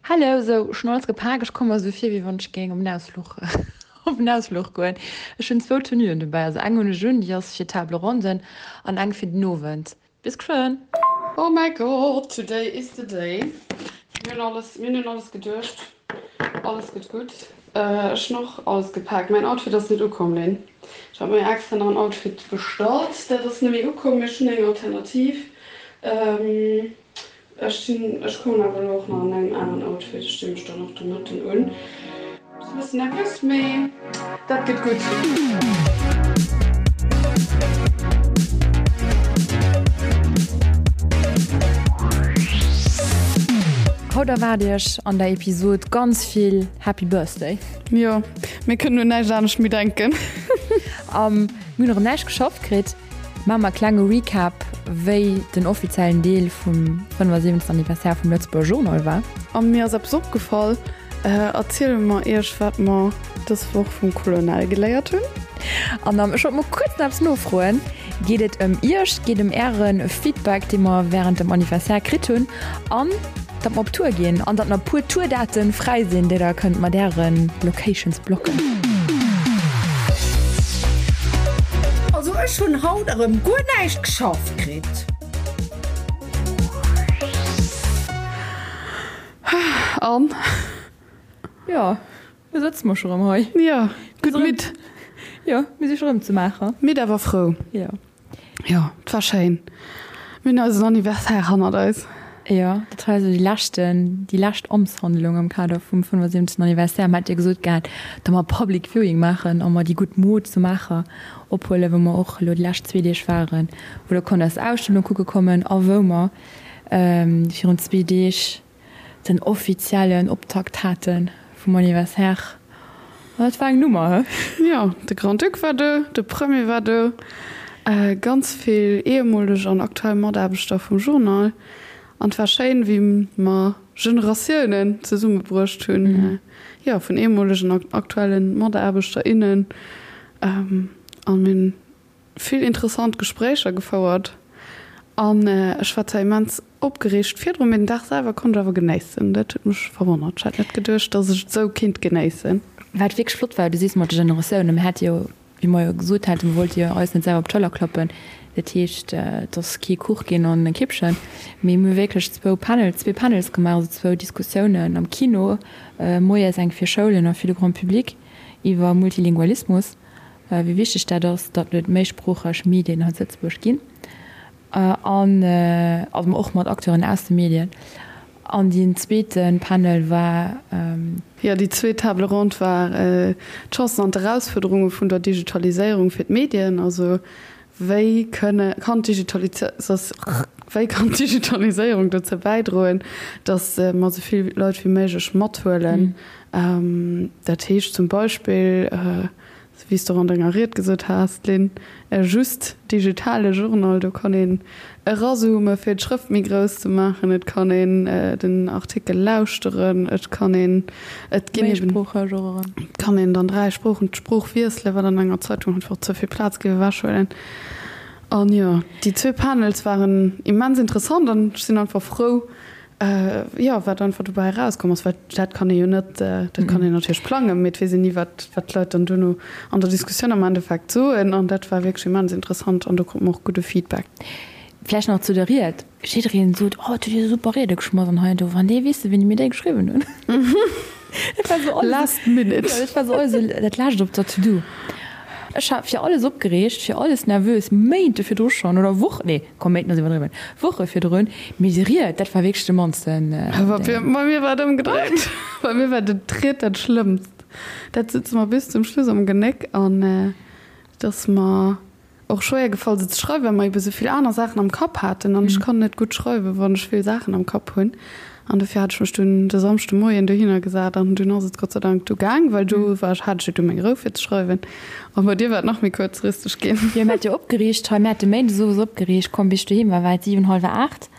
Hello, sou ech hunn alles gepak, ech komme mer sou vir wéi wann ech géing op en Ausfluch op en Ausfluch goen. Ech hunn zwou Tenuen dobäi, also eng hunn ech un, déi ass fir Table Ronden an eng fir den Owend. Bis geschwënn! Oh my God, today is the day. Mir hunn alles, mir hunn un alles geduecht. Alles gëtt gutt. Ech hunn och alles gepaakt. Mäin Outfit ass net ukomm, Lynn. Ech hat mir extra nach en Outfit bestallt. Dat ass net méi ukomm, mee ech hunn eng Alternativ. Ech sinn, ech kommen awer elo och nach an engem aneren Outfit. Ech di mech dann och de Mëtten un. Ass e bëssen nervös, mee dat gëtt gutt. Haut erwaart iech an der Episod ganz vill Happy Birthday. Jo, mir kënnen un näischt anescht méi denken. A mir hunn erëm näischt geschafft kritt. Maache mer e klenge Recap, wéi den offiziellen Deel vum 75. Anniversaire vum Lëtzebuerger Journal war. A mir ass eppes opgefall, Erziele mer iech, wat mer dës Woch vum Colonel geléiert hunn. An ech wollt mol kuerz nach eppes nofroen, Geet et ëm iech, geet ëm äre Feedback, dee mer wärend dem Anniversaire kritt hunn, an datt mer op Tour ginn an datt nach e puer Tour-Daten fräi sinn, déi der kënnt mat äre Locations blocken. Also ech hunn haut erëm guer näischt geschafft kritt. An? Jo, lo sëtze mer scho rëm hei. Jo, gutt midd. Jo, mir si scho rëm zu Maacher. Midd awer frou. Jo. Jo, et war schéin. Mir hunn eisen Anniversaire hannert eis. Jo, dat war also déi leschten, déi lescht Amtshandlung am Kader vum 75. Anniversaire. Mer hat jo gesot gehat, datt mer Public Viewing maachen a mer déi gutt Mod zu Maacher ophuelen, wou mer och elo déi lescht zwee Deeg waren, wou der konnt eis Ausstellung kucke kommen a wou mer virun zwee Deeg den offiziellen Optakt hate vum Anniversaire. An dat war eng Nummer, he? Jo, de Grand-Duc war do, de Premier war do, ganz vill ehemoleg an aktuell Mataarbechter vum Journal. An et war schéin, wéi mer Generatiounen zesummebruecht hunn, jo, vun ehemolegen an aktuellen Mataarbechter, innen. An mir hunn vill interessant Gespréicher gefouert an ech war zwar immens opgereegt virdrun, mee den Dag selwer konnt ech awer genéissen. Dat huet mech verwonnert. Ech hat net geduecht, dass ech et esou kinnt genéissen. Wat wierklech flott war, du sees mat de Generatiounen, mir hate jo, wéi mer jo gesot haten, mir wollte jo eis net selwer op d'Schëller klappen, dat heescht, et ass kee Kuch ginn an e Kippchen, mee mir hu wierklech zwou Panels, zwee Panels gemaach, also zwou Diskussiounen am Kino moies, eng fir Schoulen a fir de Grand Public iwwer Multilingualismus. wéi wichteg dat ass, datt et méisproocheg Medien hei zu Lëtzebuerg ginn an also och mat Acteuren aus de Medien. An deen zweete Panel war. Jo, déi zweet Table ronde war d'Chancen an d'Erausfuerderunge vun der Digitaliséierung fir d'Medien. Also wéi kënne, kann wéi kann d'Digitaliséierung dozou bäidroen, datt mer esou vill Leit wéi méiglech mathuelen? Dat heescht zum Beispill, wéi s de och an denger Ried gesot has, Lynn, e just digitale Journal, do kann een erazoome fir d'Schrëft méi grouss ze maachen, et kann een den Artikel lauschteren, et kann een, et ginn eben, et kann een dann 3 Sproochen, d'Sprooch wiesselen, wat an enger Zeitung einfach ze vill Plaz géif ewechhuelen. An jo, déi zwee Panels waren immens interessant an ech sinn einfach frou, Jo, wat einfach dobäi erauskomm ass, well dat kann ee jo net, dat kann een natierlech plangen, mee et weess een ni, wat wat d'Leit dann duerno an der Diskussioun am Endeffekt soen. An dat war wierklech immens interessant an do krute mer och gudde Feedback. Vläicht nach zu der Ried, Jiddereen sot, Oh, et huet dir super Riede geschmass an hei an do. Wann déi wéisste wéini mir déi geschriwwen hunn. Dat war sou alles. Last minute. Jo, dat war sou alles esou dat Lescht op der To-Do. Ech war fir alles opgereegt, fir alles nervös, Méinte virdru schonn oder Wochen, nee, komm, Méinten ass iwwerdriwwen, Woche virdrun. Mee déi Ried, dat war wierklech de mannsten Ding. Bei mir war et ëmgedréit. Bei mir war d'Ried dat Schlëmmst. Dat sëtzt mer bis zum Schluss am Genéck an et ass mer och schwéier gefall se ze schreiwen, well mer ebe sou vill aner Saachen am Kapp haten an ech kann net gutt schreiwen, wann ech vill Saachen am Kapp hunn. An dofir hat ech mech dunn de Samschde Moien dohinner gesat an dunn ass et Gott sei Dank du gaang, well do war ech, hat ech jo du meng Rou fir ze schreiwen. A bei dir war et nach méi kuerzfristeg ginn. Jo, mir hat jo opgeriicht hei, mir hate méindes owes opgeriicht, komm bis ech doheem war, war et 7, hallwer 8.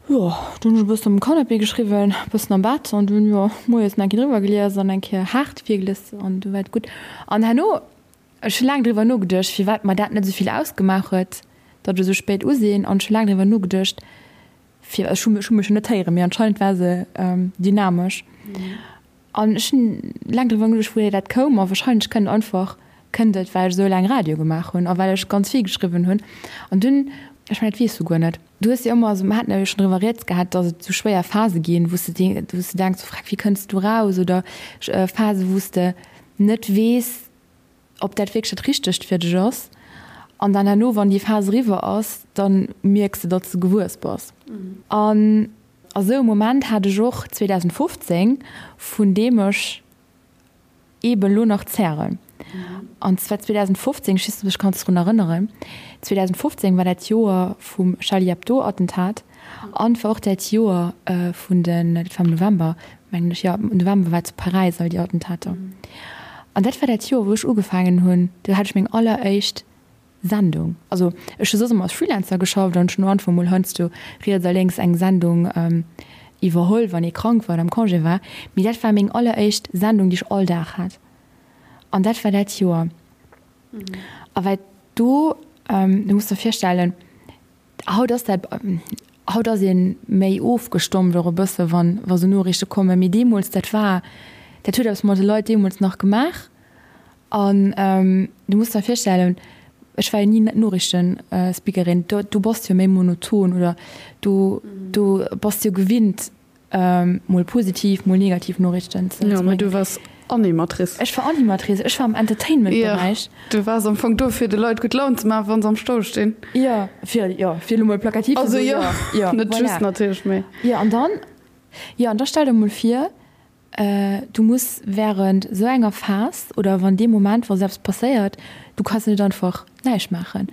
Jo, dunn hunn ech e bëssen um Canapé geschriwwen, e bëssen am Bett an dunn, jo, moies nach eng Kéier driwwer gelies an eng Kéier haart virgelies an du war et gutt. An herno, ech hu laang driwwer nogeduecht, firwat mer dat net esou vill ausgemaach huet, datt ech esou spéit u sinn an ech hu laang driwwer nogeduecht,. Fir, ech hu mech jo net héieren, mee anscheinend war se dynamesch. An ech hunn laang driwwer nogeduecht, wouhier dat koum. A wahrscheinlech kënnt einfach, kënnt et, well ech esou laang Radio gemaach hunn a well ech ganz vill geschriwwen hunn. An dunn, ech mengen, dat weess du guer net, du hues jo ëmmer, also mer haten jo schonn driwwer rieds gehat, datt et esou schwéier Phase ginn, wou s de, wou s de denks, oh freck, wéi kënns du raus? Oder Phase, wou s de net weess, ob dat wierklech dat Richtegt fir dech ass. An dann herno, wann déi Phas eriwwer ass, da mierks de, datt s de gewuess bass. An a sou e Moment hat ech och 2015, vun deem ech eeben elo nach zären. An zwar 2015, ech weess net, ob du dech kanns drun erënneren, 2015 war dat Joer vum Charlie Hebdo-Attentat an et war och dat Joer vun den, dat war am November, mengen ech, jo, am November war zu Paräis all déi Attentater. An dat war dat Joer, wou ech ugefaangen hunn, do hat ech meng alleréischt Sendung. Also ech hu soss ëmmer als Freelancer geschafft an ech hunn einfach mol heiansdo riets a lénks eng Sendung iwwerholl, wann ee krank war oder am Congé war. Mee dat war meng alleréischt Sendung, déi ech all Dag hat. An dat war dat Joer. A well do, du muss der virstellen, Haut ass dat, haut ass ee méi ofgestompt och e bësse wann, wa sou Noriichte kommen, mee deemools, dat war, dat huet eppes mat de Leit deemools nach gemaach. An du muss der virstellen, ech war jo ni Noriichtenspeakerin, do, do bass de jo méi monoton oder do, do bass de jo gewinnt, Mol positiv, mol negativ Noriichten ze Jo, mee du waars Animatrice. Ech war Animatrice, ech war am Entertainment-Beräich. Jo, du waars am Fong do, fir de Leit gutt Laun ze maachen, wa se am Stau stinn. Jo, fir, jo, fir elo mol plakativ ze soen. Also jo, net just natierlech, mee. Jo, an dann, jo, an da stell der mol vir, Du muss während esou enger Phas oder wann dee Moment, wa sou eppes passéiert, du kanns net einfach näischt maachen.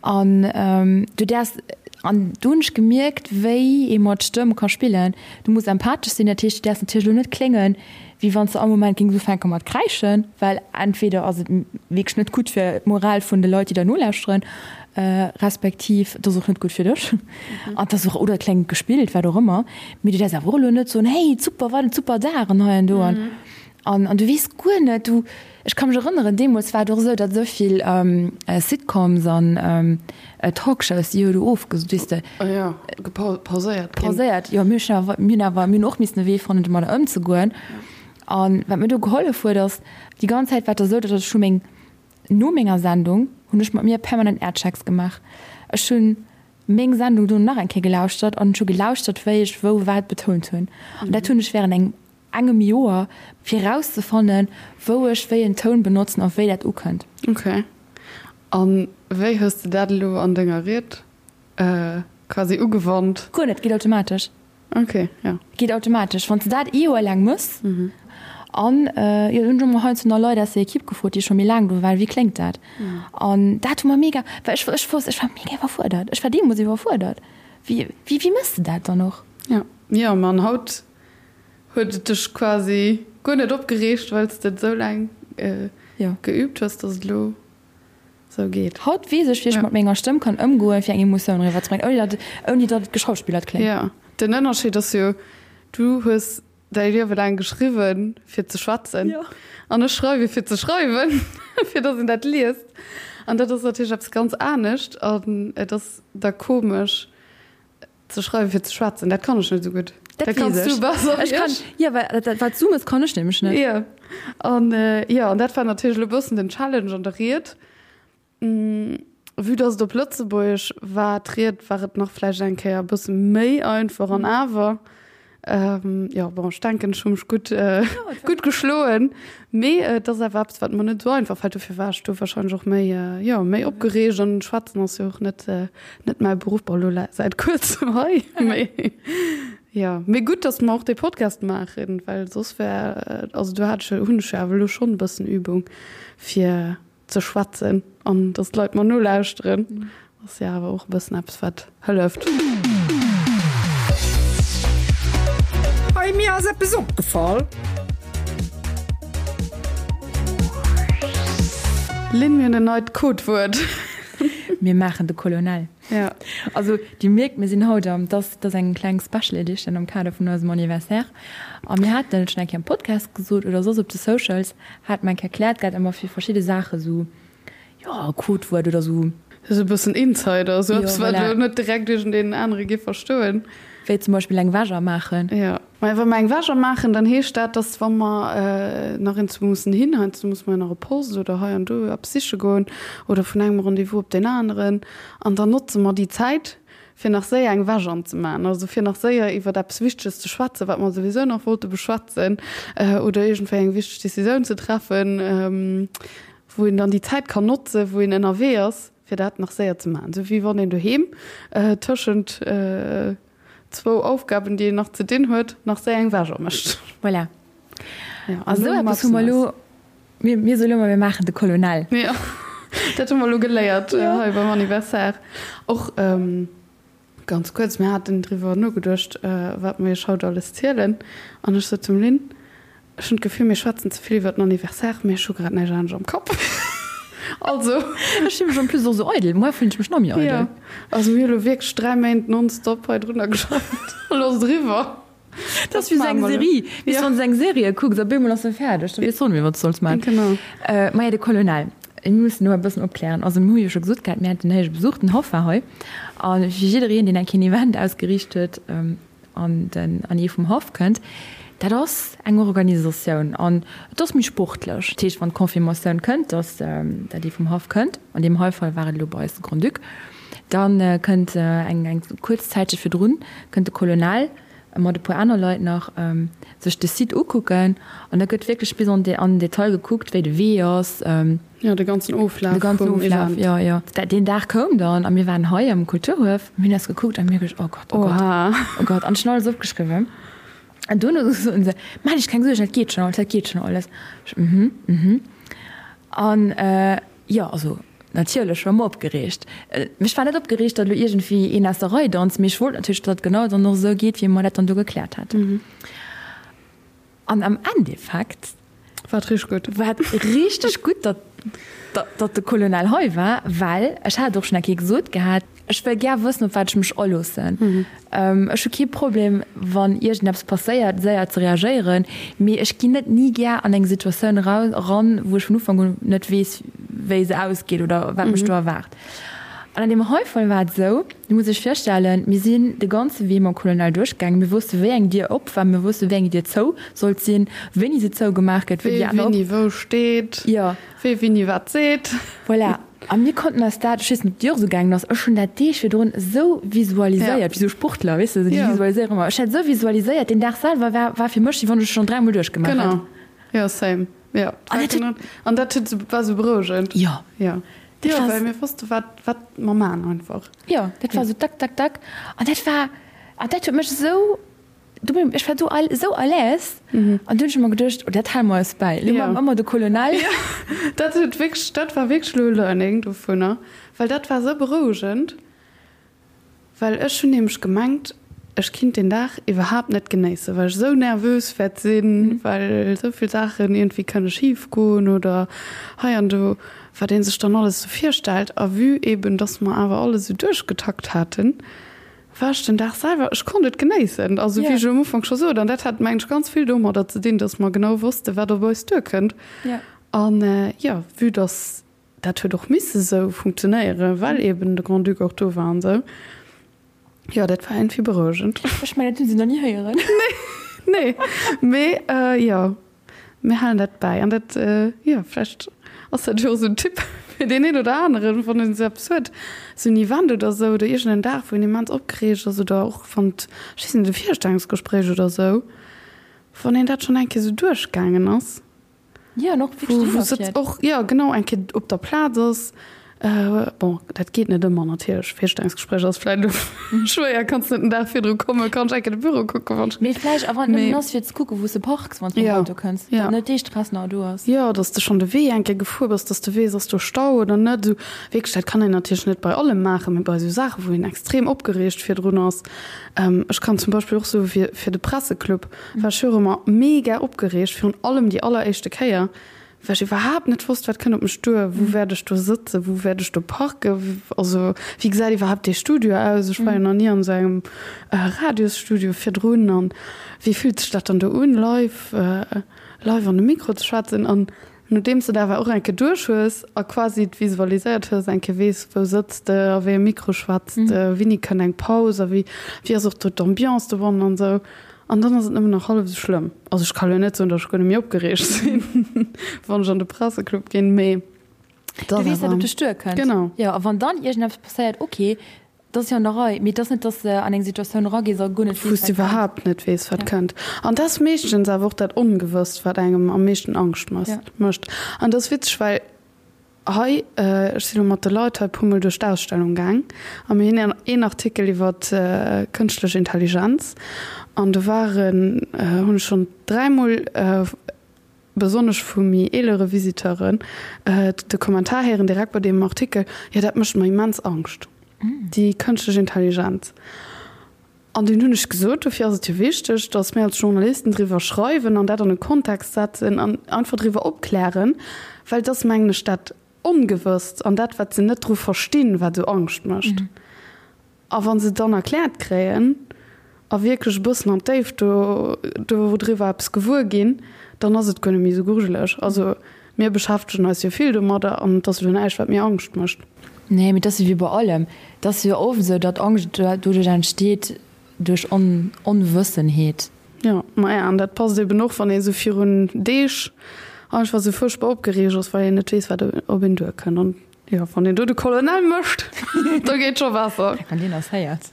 An du däerfs, an do hunn ech gemierkt, wéi ee mat Stëmm ka spillen. Du muss empathesch sinn, dat heescht, du däerfs natierlech elo net kléngen, wéi wann s de all Moment géings ufänke mat kräischen, well entweder ass et wierklech net gutt fir d'Moral vun de Leit, déi der nolauschteren, respektiv et ass och net gutt fir dech an et ass och, oder et kléngt gespillt, wat och ëmmer, mee du däerfs awer och elo net soen, hey super, wat en super Dag an hei an do an an an du weess guer net, du, ech ka mech erënneren, deemools war et och esou, datt esou vill Sitcoms an Talkshows, déi hu do ofgesot, weess de. Ah jo, pauséiert ginn. Pauséiert, jo, mir hunn awer, mir hunn awer, mir hunn och missen e Wee fannen, domadder ëmzegoen an wat mir do gehollef huet ass, déi ganz Zäit war et da esou, datt ech hu meng No menger Sendung hunn ech mat mir permanent Airchecks gemaach. Ech hunn meng Sendung dono nach eng Kéier gelauschtert an ech hu gelauschtert, wéi ech wou wat betount hunn. An dat hunn ech wärend engem engem Joer, fir erauszefannen, wou ech wéi en Toun benotzen a wéi dat ukënnt. Ok. A wéi hues de dat elo an denger Ried quasi ugewannt? Guer net, geet automatesch. Ok, jo. Geet automatesch, wann s de dat ee Joer laang mëss. An jo, hunn ech och mol heiansdo nach Leit aus der Ekipp gefrot, déi scho méi laang do waren, wéi kléngt dat? An dat hu mer mega, well ech ech wosst, ech war mega iwwerfuerdert. Ech war deemools iwwerfuerdert. Wéi wéi wéi mëss de dat dann och? Jo, jo, ma an haut huet et dech quasi guer net opgereegt, well s de et esou laang geüübt hues, dass et elo Sou geet. Haut weess ech, wéi ech mat menger Stëmm kann ëmgoen, fir eng Emotioun eriwwerzebréngen, ouni datt, ouni datt et geschauspillert kléngt. Jo, den Ënnerscheed ass jo, du hues däi Liewe laang geschriwwen, fir ze schwätzen, an ech schreiwe fir ze schreiwen, fir datt een dat liest. An dat ass natierlech eppes ganz anescht an et ass da komesch, Ze schreiwen fir ze schwätzen, dat kann ech net esou gutt. Dat kanns du besser wéi ech. Jo, well dat wat du mëss, kann ech nämlech net. Jo, an jo, an dat war natierlech elo e bëssen den Challenge an der Ried. Vue dass et op Lëtzebuergesch war, d'Ried, war et nach vläicht eng Kéier e bësse méi einfach an awer Jo, bon, ech denken, ech hu mech gutt, gutt geschloen. Mee et ass awer eppes, wat mer net esou einfach fält. Dofir war ech do warscheinlech och méi, jo, méi opgereegt. An schwätzen ass jo och net, net mäi Beruff. Bon, elo säit kuerzem hei, mee jo. Mee gutt, datt mer och dee Podcast maachen, well soss wär, also do hat ech jo, hunn ech jo awer elo schonn e bëssen Übung, fir ze schwätzen an dass d'Leit mer nolauschteren, ass jo awer och e bëssen eppes wat hëlleft. Hey, mir ass eppes opgefall. Lynn, mir hunn en neit Codewuert. Mir maachen de Colonel. Ja. Also Dir mierkt, mir sinn haut am, dat ass eng kleng Special Edition am Kader vun eisem Anniversaire. A mir haten et schonn eng Kéier am Podcast gesot oder soss op de Socials, hat mer eng Kéier erkläert gehat, ëmmer fir verschidde Saache sou, jo, e Codewuert oder sou. Sou e bëssen Insider, sou eppes, wat elo net direkt iergendeen anere géif verstoen. Wéi zum Beispill eng Wäsch maachen. Jo. Mä wa mer eng Wäsch maachen, dann heescht dat, dass wa mer nach iergendwou mussen hin, heiansdo musse mer jo nach op Post oder hei an do eppes siche goen oder vun engem Rendez-vous op deen aneren, an dann notze mer déi Zäit, fir nach séier eng Wäsch anzemaachen, also fir nach séier iwwert eppes Wichteges ze schwätzen, wat mer souwisou nach wollte beschwätzen, oder iergendwéi eng wichteg Decisioun ze treffen, wou een dann déi Zäit kann notzen, wou een ënnerwee ass, fir dat nach séier ze maachen. Esou wéi wann een doheem tëschent zwou Aufgaben, déi een nach ze dinn huet, nach séier eng Wäsch mécht. Voilà. A sou eppes hu mer elo. Mir, mir soe lo mol, mir maachen de Colonel. Jo, dat hu mer elo geléiert hei beim Anniversaire. Och ganz kuerz, mir haten driwwer nogeduecht, wat mer iech haut alles zielen. An ech sot zum Lynn, Ech hunn d'Gefill, mir schwätzen ze vill iwwer den Anniversaire, mee ech hu grad näischt anescht am Kapp. Also. Ech fille mech en plus och esou eidel. Moar fillen ech mech nach méi eidel. Jo, also mir hu lo wierklech 3 Méint nonstop hei drunner geschafft. Elo ass et eriwwer. Dat ass wéi esou eng Serie. Weess du, wann s de eng Serie kucks, op eemol ass se fäerdeg, da weess de och net méi, wat s de solls maachen. Genau. Maja, de Colonel, mir mussen elo e bëssen opklären. Also mir hu jo scho gesot gehat, mir haten héije Besuch, den Haff war hei. A fir jiddereen, deen eng Kéier en Event ausgeriicht huet an den an ee vum Haff kënnt, dat ass eng Organisatioun an et ass méi sportlech. Dat heescht, wann d'Confirmatioun kënnt, datt dat ee vum Haff kënnt, an deem hei Fall war et elo bei eis de Grand-Duc, Da kënnt eng eng kuerz Zäitche virdrun kënnt de Colonel mat e puer aner Leit nach sech de Site ukucken an da gëtt wierklech bis an an den Detail gekuckt, wéi de Wee ass. Jo, de ganzen Oflaf De ganzen vum Oflaf, Event. jo, jo. Deen Dag koum dann a mir waren hei am Kulturhuef, mir hunn eis gekuckt a mir hu geduecht, oh Gott, oh Gott, Oha. oh Gott an ech hunn alles opgeschriwwen. An duerno soen se, Maach dech keng Suergen, dat geet schonn alles, dat geet schonn alles. Ech, mhm, mhm. An jo, also natierlech war mer opgereegt. Ech war net opgereegt, datt elo iergendwéi een aus der Rei danzt, mee ech wollt natierlech, datt et genau dann och esou geet, wéi mer dat dann do gekläert haten. An am Endeffekt. War et richteg gutt. War et richteg gutt, datt, datt de Colonel hei war, well ech hat et och schonn eng Kéier gesot gehat, ech wëll gär wëssen, op wat ech mech aloossen. Ech hu kee Problem, wann iergendeppes passéiert, séier ze reagéieren, mee ech ginn net ni gär an eng Situatioun eran, wou ech vun Ufank un net weess, wéi se ausgeet oder wat mech do erwaart. An an deem hei Fall war et esou, Du muss dech virstellen, mir sinn de ganze Wee mam Colonel duerchgaangen, mir wosste wéi eng Dier op war, mir wosste wéi eng Dier zou sollt sinn, wéini se zougemaach gëtt, wéi déi aner op. Wee wéini wou steet, wee wéini wat seet. Voilà. A mir konnten eis dat, ech weess net, ob et dir och esou gaangen ass, ech hunn dat Deeg virdrun esou visualiséiert, wéi esou Sportler, weess de, déi visualiséieren ëmmer. Ech hat esou visualiséiert, deen Dag selwer war, war fir mech, wéi wann ech et schonn dräimol duerchgemaach hätt. Genau, jo, same, jo. An dat huet. An dat huet esou, war esou berouegend. Jo. Jo. Dat Jo, war. well mir wosste wat, wat mer maachen einfach. Jo, dat war esou tak, tak, tak. An dat war, an dat huet mech esou. Do bin ech war do all esou à l'aise an du hunn ech ëmmer geduecht, oh dat hale mer eis bäi, elo maache mer ëmmer de Colonel. Jo, dat huet wierklech, dat war wierklech elo e Learning dovunner, well dat war esou berouegend, well ech hunn nämlech gemengt, ech kinnt deen Dag iwwerhaapt net genéissen, well ech esou nervös wäert sinn, well esou vill Saachen iergendwéi kënne schif goen oder hei an do, wat ee sech dann alles esou virstellt. A vue eben, dass mer awer alles esou duerchgetakt haten, War ech den Dag selwer, ech konnt et genéissen, also wéi ech um Ufank scho sot, an dat hat mengen ech ganz vill domadder ze dinn, datt mer genau wosste wat op eis duerkënnt. An jo, vue datt dat huet och misse sou funktionéieren, well eben de Grand-Duc och do war an esou, jo dat war iergendwéi berouegend. Ech mengen dat hunn se nach ni héieren. Nee, nee, mee jo. Mir halen dat bäi. An dat, jo, vläicht ass dat jo och esou en Tipp fir deen een oder aneren, wann en esou eppes huet, esou en Event oder esou oder iergend en Dag, wou een immens opgereegt ass oder och wann et, ech weess net, e Virstellungsgespréich oder esou, wann een dat schonn eng Kéier esou duerchgaangen ass, Jo, an och wou wou se och, jo, genau, eng Kéier op der Plaz ass. Bon, dat geet net ëmmer natierlech. Virstellungsgespréich ass vläicht elo schwéier, kanns net den Dag virdru kommen, kann ech eng Kéier de Büro kucken, wann ech. Mee vläicht, a wann et nëmmen ass fir ze kucken, wou s de parks, wann s de mam Auto kënns, datt net dee Stress nach do ass. Jo, datt s de schonn de Wee eng Kéier gefuer bass, datt s de weess, ass do Stau oder net. Esou wierklech, dat kann een natierlech net bei allem maachen, mee bei esou Saachen, wou een extrem opgereegt virdrun ass. Ech kann zum Beispill och soe fir fir de Presseclub war ech jo och ëmmer mega opgereegt, virun allem déi alleréischte Kéier, Well ech iwwerhaapt net wosst, wat kënnt op mech duer, wou wäert ech do sëtzen, wou wäert ech do parken, also wéi gesäit iwwerhaapt dee Studio aus, ech war jo nach ni an esou engem Radiosstudio virdrun an wéi fillt sech dat dann do un, live, live an de Mikro ze schwätzen. An Nodeems de et awer och eng Kéier duerch hues a quasi et visualiséiert hues, eng Kéier weess, wou sëtz de, a wéi e Mikro schwätz de, wéini kënnt eng Paus a wéi, wéi ass och do d'Ambiance dobannen an esou. An dann ass et nëmmen nach hallef esou schlëmm. Also ech ka lo net soen, datt ech guer net méi opgereegt sinn, wann ech an de Presseclub ginn, mee et ass awer. Du weess, wat op dech duerkënnt. Genau. Jo, a wann dann iergendeppes passéiert, ok, dat ass jo an der Rei, mee et ass net, datt s de an eng Situatioun eragees a guer net weess, wat kënnt. Wou s de iwwerhaapt net weess, wat kënnt. An dat ass meeschtens awer och dat Ongewësst, wat engem am meeschten Angscht mécht. An dat ass witzeg, well Hei, ech sinn elo mat de Leit hei puer mol duerch d'Ausstellung gaang a mir hunn een Artikel iwwer kënschtlech Intelligenz an do waren, hunn ech schonn dräimol, besonnesch vu méi eelere Visiteuren, de Kommentar héieren direkt bei deem Artikel, jo dat mécht mer immens Angscht, déi kënschtlech Intelligenz. An dunn hunn ech gesot, dofir ass et jo wichteg, datt mir als Journalisten driwwer schreiwen an dat an e Kontext setzen an einfach driwwer opklären, well et ass, mengen ech, dat Ongewësst an dat, wat se net dru verstinn, wat esou Angscht mécht. A wa se et dann erkläert kréien a wierklech e bëssen an d'Déift do dodriwwer eppes gewuer ginn, dann ass et guer net méi esou grujeleg. Also mir beschäftegen eis jo vill domadder an et ass elo näischt, wat mir Angscht mécht. Nee, mee et ass jo wéi bei allem. Et ass jo oft esou, datt Angscht doduerch entsteet, duerch Onwëssenheet. Jo, maja, an dat passt eben och, wann ee sou virun Deeg einfach sou fuerchtbar opgereegt ass, well een net weess, wat op een duerkënnt. An jo, wann een do de Colonel mécht, da geet scho besser. Wann deen eis héiert.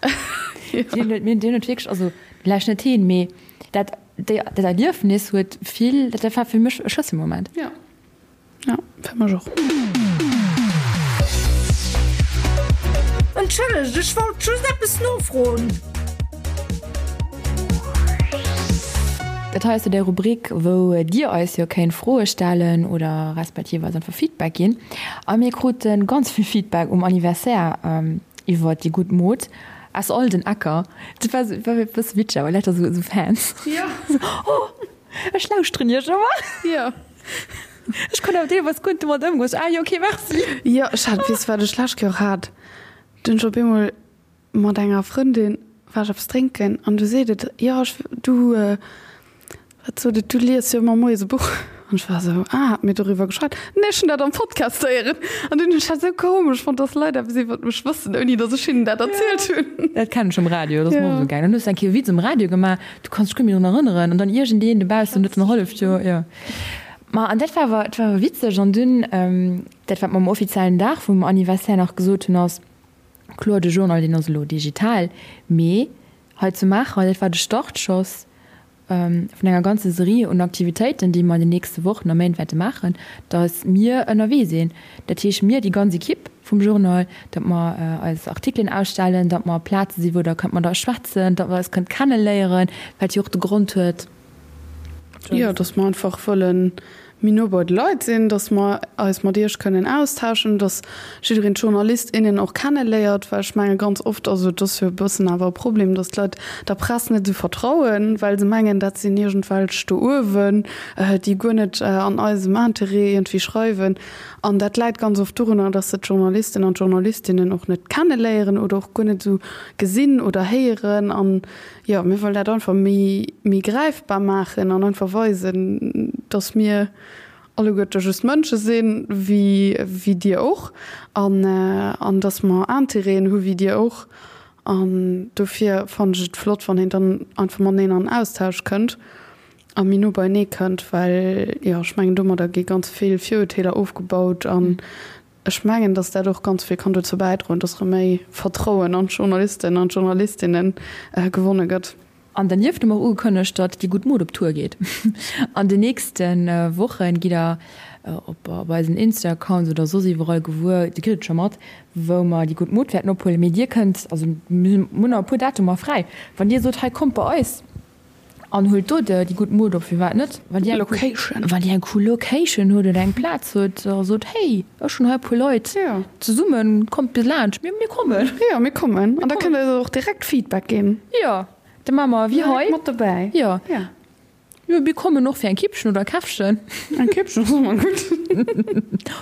Deen huet, deen huet wierklech, also vläicht net heen, mee dat, déi, dat Erliefnis huet vill, dat war fir mech e Schlësselmoment. Jo. Ja, fir mech och. Entschëllegt, ech wollt just eppes nofroen. Dat hei ass jo déi Rubrik, wou Dir eis jo kéint Froe stellen oder respektiv eis einfach Feedback ginn. A mir krute ganz vill Feedback um Anniversaire iwwer déi gutt Mod aus all den Ecker. Dat war e bësse witzeg, awer lauter esou Fans. Jo. Oh! Ech lauschteren iech ëmmer. Jo. Ech konnt awer deelweis guer net domat ëmgoen. Ah jo, okay, merci. Jo, ech hat, weess de wat ech d'lescht Kéier och hat? Du hunn ech op eemol mat enger Frëndin, war ech eppes drénken an du seet et, jo ech, du, wat sot et, du lies jo ëmmer moies e Buch. An ech war esou, ah, hat mir doriwwer geschwat? Nee, ech hunn dat am Podcast héieren. An dunn hunn ech dat esou komesch fonnt, dass Leit eppes iwwert mech wëssen, ouni dass ech hinnen dat erzielt hunn. Dat kennen ech vum Radio, dat ass mer och esou gaangen. Dann hues du eng Kéier e Witz um Radio gemaach, du kanns dech guer net méi drun erënneren an dann iergendeen dobaussen huet en halleft Joer, jo. Ma an dat war awer, dat war awer witzeg an dunn, dat wat mer um offiziellen Dag vum Anniversaire nach gesot hunn ass, kloer de Journal deen ass elo digital, mee hei zu Maacher, dat war de Startschoss vun enger ganze Serie un Aktivitéiten, déi mer an den nächste Wochen a Méint wäerte maachen, datt mir ënnerwee sinn, dat heescht mir, déi ganz Equipe vum Journal, datt mer eis Artikelen ausstellen, datt mer op Plaze sinn, wou Der kënnt mat eis schwätzen, datt mer eis kënnt kenneléieren, wat jo och de Grond huet. Jo, datt mer einfach wëlle méi no bei de Leit sinn, datt mer eis mat Iech kënnen austauschen, datt jiddereen d'Journalist, innen och kenneléiert, well ech menge ganz oft, also et ass jo e bëssen awer e Problem, datt d'Leit der Press net esou vertrauen, well se mengen, dat sinn iergendwelch do uewen, déi guer net an eisem Interêt iergendwéi schreiwen. An dat läit ganz oft dorunner, datt se d'Journalisten an d'Journalistinnen och net kenneléieren oder och guer net esou gesinn oder héieren. An jo, mir wëllen dat einfach méi, méi gräifbar maachen an einfach weisen, datt mir alleguerte just Mënsche sinn, wéi, wéi Dir och, an, an datt mer Intérêten hu wéi Dir och. An dofir fannen ech et flott, wann een dann einfach mateneen an Austausch kënnt a méi no beienee kënnt, well, jo, ech mengen, domadder gi ganz vill Virurteeler ofgebaut an ech mengen, datt dat och ganz vill kann dozou bäidroen, datt erëm méi Vertrauen an d'Journalisten an d'Journalistinne gewonne gëtt. An dernieft hu mer och ugekënnegt, datt déi gutt Mod op Tour geet. An den nächste Woche gitt der op eisen Insta-Accounts oder soss iwwerall gewuer, Dir kritt et scho mat, wou mer déi gutt Mod wäerten ophuelen. Mee Dir kënnt, also mir hunn nach e puer Datumer fräi, wann Dir sot, hei kommt bei eis an huelt do déi gutt Mod op, firwat net? Wann Dir eng cool, wann Dir eng cool Location hutt oder eng Plaz hutt a sot, hey, ech hunn hei e puer Leit zesummen, kommt bis laanscht, mir kommen. Jo, mir kommen. An da kënnt Der eis och direkt Feedback ginn. Jo, da maache mer wéi hei. Mat dobäi. Jo. Jo, mir kommen och fir eng Kippchen oder e Käffchen. Eng Kippchen ass ëmmer gutt.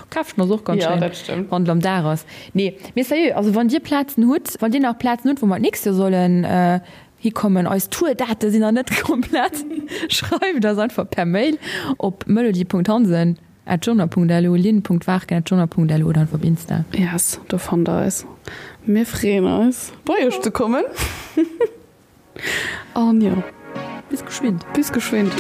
Käffchen ass och ganz schéin. Jo, dat stëmmt. Wann et am Dag ass. Nee, mee sérieux, also wann Dir Plazen hutt, wann Dir nach Plazen hutt, wou mer d'nächst Joer sollen hikommen, eis Tour-Date sinn nach net komplett, schreift eis einfach per Mail op melody.hansen. At journal.lu, lynn.warken at journal.lu oder einfach op Insta. Yes, do fannt der eis. Mir freeën eis, bei iech ze kommen. An jo. Bis geschwind. Bis geschwind.